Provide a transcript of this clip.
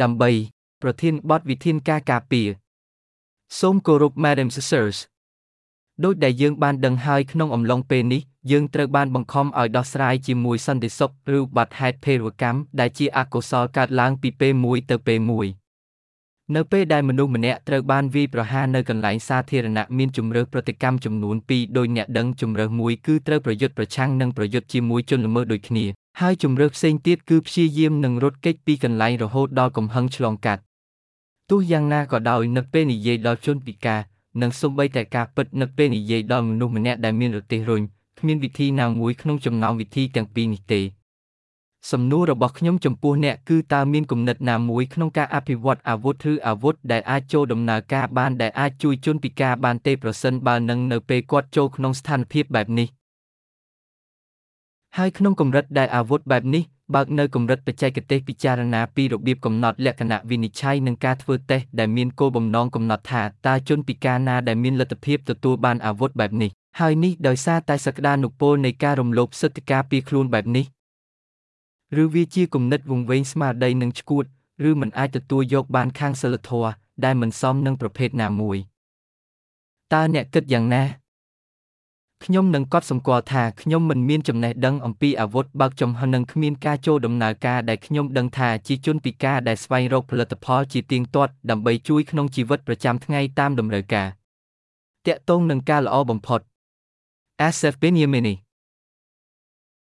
ដើម្បី ប្រធានបទវិធានការការពារសូមគោរព Madam Sirs ដូចដែលយើងបានដឹងហើយក្នុងអំឡុងពេលនេះយើងត្រូវបានបង្ខំឲ្យដោះស្រាយជាមួយសន្តិសុខឬបាត់ហេតុភេរវកម្មដែលជាអកុសលកើតឡើងពីពេលមួយទៅពេលមួយនៅពេលដែលមនុស្សម្នាក់ត្រូវបានវាយប្រហារនៅកន្លែងសាធារណៈមានជម្រើសប្រតិកម្មចំនួនពីរដោយអ្នកដឹងជម្រើសមួយគឺត្រូវប្រយុទ្ធប្រឆាំងនិងប្រយុទ្ធជាមួយជនល្មើសដូចគ្នាហើយជម្រើសផ្សេងទៀតគឺព្យាយាមនឹងរត់គេចពីកន្លែងរហូតដល់កំហឹងឆ្លងកាត់ទោះយ៉ាងណាក៏ដោយនៅពេលនិយាយដល់ជនពិការនិងសូម្បីតែការពិតនៅពេលនិយាយដល់មនុស្សម្នាក់ដែលមានរទេះរុញគ្មានវិធីណាមួយក្នុងចំណោមវិធីទាំងពីរនេះទេសំណួររបស់ខ្ញុំចំពោះអ្នកគឺតើមានគំនិតណាមួយក្នុងការអភិវឌ្ឍអាវុធឬអាវុធដែលអាចចូលដំណើរការបានដែលអាចជួយជនពិការបានទេប្រសិនបើនឹងនៅពេលគាត់ចូលក្នុងស្ថានភាពបែបនេះហើយក្នុងកម្រិតដែលអាវុធបែបនេះបើកនៅកម្រិតបច្ចេកទេសពិចារណាពីរបៀបកំណត់លក្ខណៈវិនិច្ឆ័យនិងការធ្វើតេស្តដែលមានគោលបំណងកំណត់ថាតើជនពិការណាដែលមានលទ្ធភាពទទួលបានអាវុធបែបនេះហើយនេះដោយសារតែសក្តានុពលនៃការរំលោភសិទ្ធិការពារខ្លួនបែបនេះឬវាជាគំនិតវង្វេងស្មារតីនិងឆ្កួតឬមិនអាចទទួលយកបានខាងសីលធម៌ដែលមិនសមនឹងប្រភេទណាមួយតើអ្នកគិតយ៉ាងណាខ្ញុំនឹងកត់សម្គាល់ថាខ្ញុំមិនមានចំណេះដឹងអំពីអាវុធបើកចំហនិងគ្មានការចូលដំណើរការដែលខ្ញុំដឹងថាជាជនពិការដែលស្វែងរកផលិតផលជាទៀងទាត់ដើម្បីជួយក្នុងជីវិតប្រចាំថ្ងៃតាមតម្រូវការទាក់ទងនឹងការល្អបំផុត Asef Benyamini.